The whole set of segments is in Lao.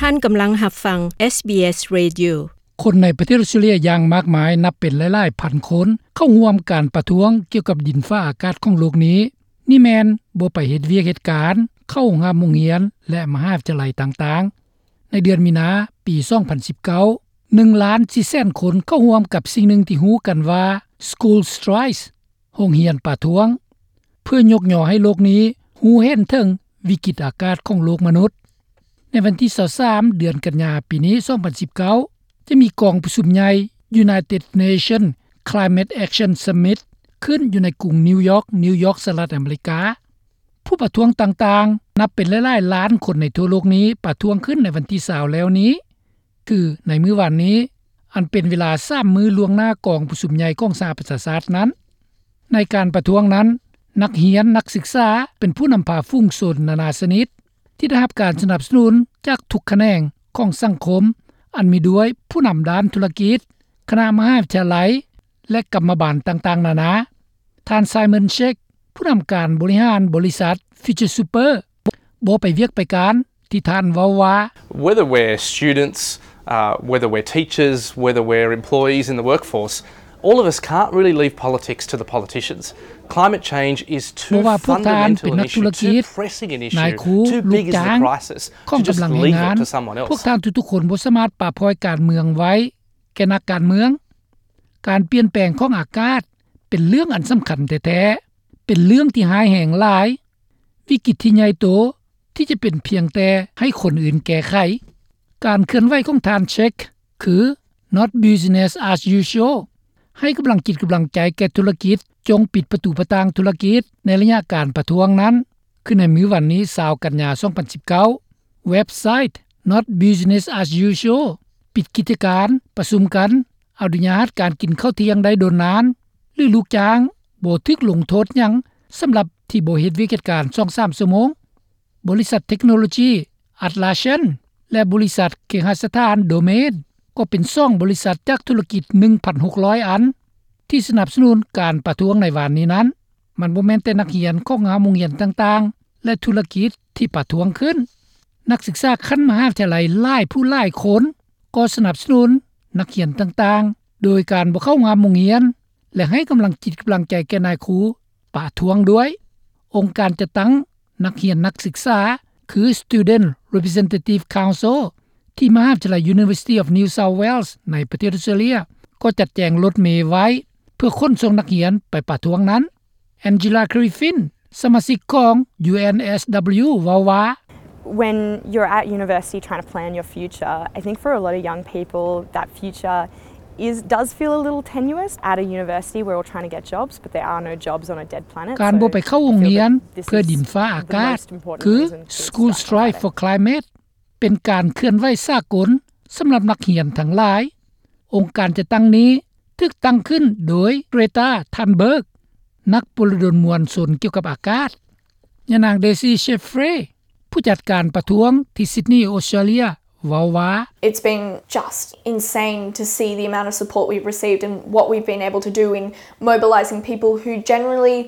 ທ່ານກຳລັງຮັບຟັງ ເອສບີເອສ Radio. ຄົນໃນປະເທດອອສເຕຣເລຍຢ່າງມາກມາຍ ນັບເປັນຫຼາຍໆພັນຄົນ ເຂົ້າຮ່ວມການປະທ້ວງກ່ຽວກັບດິນຟ້າອາກາດຂອງໂລກນີ້. ນີ້ແມ່ນບໍ່ໄປເຮັດວຽກເຮັດການ, ເຂົ້າໂຮງຮ່ຳໂຮງຮຽນ ແລະ ມະຫາວິທະຍາໄລຕ່າງໆ. ໃນເດືອນມີນາ ປີສອງພັນສິບເກົ້າ ໜຶ່ງລ້ານສີ່ແສນຄົນເຂົ້າຮ່ວມກັບສິ່ງໜຶ່ງທີ່ຮູ້ກັນວ່າ School Strikes ໂຮງຮຽນປະທ້ວງ, ເພື່ອຍົກຍໍໃຫ້ໂລກນີ້ຮູ້ເຫັນເຖິງວິກິດອາກາດຂອງໂລກມະນຸດ. ໃນວັນທີຊາວສາມ ເດືອນກັນຍາ ປີນີ້ ສອງພັນສິບເກົ້າ ຈະມີກອງປະຊຸມໃຫຍ່ United Nations Climate Action Summit ຂຶ້ນຢູ່ໃນກຸງນິວຢອກ, ນິວຢອກ, ສະຫະລັດອາເມລິກາ. ຜູ້ປະທ້ວງຕ່າງໆ ນັບເປັນຫຼາຍໆລ້ານຄົນໃນທົ່ວໂລກນີ້ ປະທ້ວງຂຶ້ນໃນວັນທີຊາວແລ້ວນີ້ ຄືໃນມື້ວານນີ້ ອັນເປັນເວລາສາມມື້ລ່ວງໜ້າກອງປະຊຸມໃຫຍ່ຂອງສະຫະປະຊາຊາດນັ້ນ. ໃນການປະທ້ວງນັ້ນ, ນັກຮຽນ, ນັກສຶກສາ ເປັນຜູ້ນຳພາຝູງຊົນນານາຊະນິດ ທີ່ໄດ້ຮັບການສະໜັບສະໜູນຈາກທຸກຂະແໜງຂອງສັງຄົມ, ອັນມີດ້ວຍຜູ້ນຳດ້ານທຸລະກິດ, ຄະນະມະຫາວິທະຍາໄລ ແລະ ກຳມະບານຕ່າງໆນານາ. ທ່ານ Simon Sheikh ຜູ້ນຳການບໍລິຫານບໍລິສັດ Future Super ບໍ່ໄປວຽກໄປການ ທີ່ທ່ານເວົ້າວ່າ Whether we're students, uh, whether we're teachers, whether we're employees in the workforce, all of us can't really leave politics to the politicians. Climate change is too fundamental an issue, too pressing an issue, too big is the crisis to just leave it to someone else. ພວກທ່ານທຸກໆຄົນບໍ່ສາມາດປະປ່ອຍການເມືອງໄວ້ແກ່ນັກການເມືອງ. ການປ່ຽນແປງຂອງອາກາດເປັນເລື່ອງອັນສຳຄັນແທ້ໆ, ເປັນເລື່ອງທີ່ຮ້າຍແຮງຫຼາຍ, ວິກິດທີ່ໃຫຍ່ໂຕ ທີ່ຈະເປັນພຽງແຕ່ໃຫ້ຄົນອື່ນແກ້ໄຂ. ການເຄື່ອນໄຫວຂອງທ່ານ Sheikh ຄື Not business as usual, ໃຫ້ກຳລັງຈິດກຳລັງໃຈແກ່ທຸລະກິດ, ຈົ່ງປິດປະຕູປະຕ່າງທຸລະກິດ. ໃນໄລຍະການປະທ້ວງນັ້ນ ຄືໃນມື້ວັນນີ້ ຊາວກັນຍາ ສອງພັນສິບເກົ້າ ເວັບໄຊ Not business as usual ປິດກິດຈະການ, ປະຊຸມກັນ, ອະນຸຍາດການກິນເຂົ້າທ່ຽງໄດ້ດົນນານ ຫຼື ລູກຈ້າງບໍ່ຖືກລົງໂທດຫຍັງສຳລັບທີ່ບໍ່ເຮັດວຽກເຮັດການສອງສາມຊົ່ວໂມງ. ບໍລິສັດເທັກໂນໂລຈີ Atlassian ແລະ ບໍລິສັດເຄຫະສະຖານ Domain ກໍເປັນສອງບໍລິສັດຈາກທຸລະກິດ ໜຶ່ງພັນຫົກຮ້ອຍອັນ ທີ່ສະໜັບສະໜູນການປະທ້ວງໃນວານນີ້ນັ້ນ. ມັນບໍ່ແມ່ນແຕ່ນັກຮຽນຂອງຫ້າໂຮງຮຽນຕ່າງໆ ແລະ ທຸລະກິດທີ່ປະທ້ວງຂຶ້ນ. ນັກສຶກສາຂັ້ນມະຫາວິທະຍາໄລຫຼາຍຜູ້ຫຼາຍຄົນກໍສະໜັບສະໜູນນັກຮຽນຕ່າງໆ ໂດຍການບໍ່ເຂົ້າຮ່ວມໂຮງຮຽນ ແລະ ໃຫ້ກຳລັງຈິດກຳລັງໃຈແກ່ນາຍຄູປະທ້ວງດ້ວຍ. ອົງການຈັດຕັ້ງນັກຮຽນນັກສຶກສາ ຄື Student Representative Council ທີ່ມະຫາວິທະຍາໄລ University of New South Wales ໃນປະເທດອອສເຕຣເລຍ ກໍຈັດແຈງລົດເມໄວ້ເພື່ອຂົນສົ່ງນັກຮຽນໄປປະທ້ວງນັ້ນ. Angela Griffin ສະມາຊິກຂອງ UNSW ເວົ້າວ່າ When you're at university trying to plan your future, I think for a lot of young people, that future is, does feel a little tenuous. At a university, we're all trying to get jobs, but there are no jobs on a dead planet. ການບໍ່ໄປເຂົ້າໂຮງຮຽນເພື່ອດິນຟ້າອາກາດ ຄື School Strike for Climate ເປັນການເຄື່ອນໄຫວສາກົນສຳລັບນັກຮຽນທັງຫຼາຍ. ອົງການຈັດຕັ້ງນີ້ຖືກຕັ້ງຂຶ້ນໂດຍ Greta Thunberg ນັກປົວລະດົນມວນຊົນກ່ຽວກັບອາກາດ. ຍານາງ Daisy Chaffrey ຜູ້ຈັດການປະທ້ວງທີ່ Sydney ອອສເຕຣເລຍ ເວົ້າວ່າ It's been just insane to see the amount of support we've received and what we've been able to do in mobilizing people who generally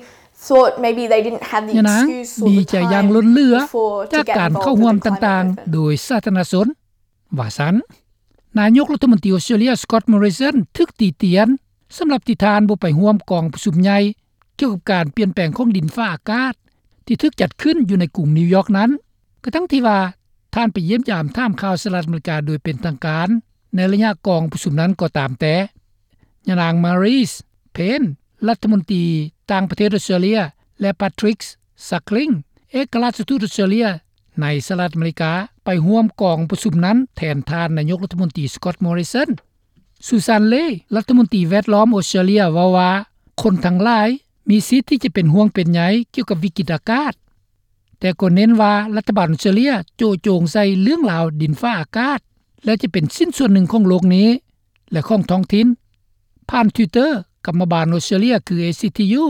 thought maybe they didn't have the excuse or the time before to get involved in the climate movement. ດີໃຈຢ່າງລົ້ນເຫຼືອຈາກການເຂົ້າຮ່ວມຕ່າງໆໂດຍສາທາລະນະຊົນ ວ່າຊັ້ນ. ນາຍົກລັດຖະມົນຕີອອສເຕຣເລຍ Scott Morrison ຖືກຕິຕຽນສຳລັບທີ່ທ່ານບໍ່ໄປຮ່ວມກອງປະຊຸມໃຫຍ່ ກ່ຽວກັບການປ່ຽນແປງຂອງດິນຟ້າອາກາດ ທີ່ຖືກຈັດຂຶ້ນຢູ່ໃນກຸງນິວຢອກນັ້ນ, ກະທັ່ງທີ່ວ່າທ່ານໄປຢ້ຽມຢາມຖາມຂ່າວສະຫະລັດອາເມລິກາໂດຍເປັນທາງການໃນໄລຍະກອງປະຊຸມນັ້ນກໍຕາມແຕ່. ຍານາງ Marise Payne ລັດຖະມົນຕີຕ່າງປະເທດອອສເຕຣເລຍ ແລະ Patrick Suckling ເອກະລາຊທູດອອສເຕຣເລຍໃນສະຫະລັດອາເມລິກາ ໄປຮ່ວມກອງປະຊຸມນັ້ນແທນທ່ານນາຍົກລັດຖະມົນຕີ Scott Morrison. Sussan Ley ລັດຖະມົນຕີແວດລ້ອມອອສເຕຣເລຍເວົ້າວ່າ ຄົນທັງຫຼາຍມີສິດທີ່ຈະເປັນຫ່ວງເປັນໃຍກ່ຽວກັບວິກິດອາກາດ, ແຕ່ກໍເນັ້ນວ່າລັດຖະບານອອສເຕຣເລຍໂຈະໂຈງໃສ່ເລື່ອງລາວດິນຟ້າອາກາດ ແລະ ຈະເປັນຊິ້ນສ່ວນໜຶ່ງຂອງໂລກນີ້ ແລະ ຂອງທ້ອງຖິ່ນ. ຜ່ານ Twitter ກຳມະບານອອສເຕຣເລຍ ຄື ເອຊີທີຢູ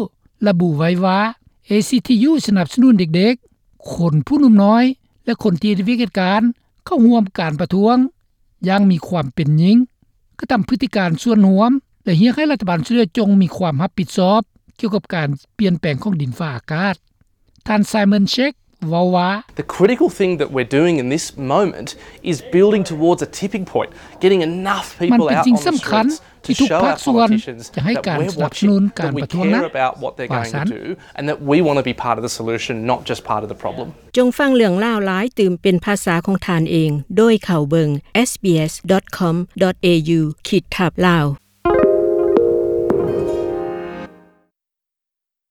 ລະບຸໄວ້ວ່າ ເອຊີທີຢູ ສະໜັບສະໜູນເດັກໆ, ຄົນຜູ້ໜຸ່ມນ້ອຍ ແລະ ຄົນທີ່ເຮັດວຽກເຮັດການເຂົ້າຮ່ວມການປະທ້ວງຢ່າງມີຄວາມເປັນຈິງ, ກະທຳພຶດຕິການສ່ວນຮວມ ແລະ ຮຽກໃຫ້ລັດຖະບານອອສເຕຣເລຍຈົ່ງມີຄວາມຮັບຜິດຊອບກ່ຽວກັບການປ່ຽນແປງຂອງດິນຟ້າອາກາດ. ທ່ານ Simon Sheikh ເວົ້າວ່າ The critical thing that we're doing in this moment is building towards a tipping point, getting enough people out on the streets to show our politicians that we're watching, that we care about what they're going to do, and that we want to be part of the solution, not just part of the problem. ຈົ່ງຟັງເລື່ອງລາວຫຼາຍຕື່ມເປັນພາສາຂອງທ່ານເອງ ໂດຍເຂົ້າເບິ່ງ sbs.com.au/lawrence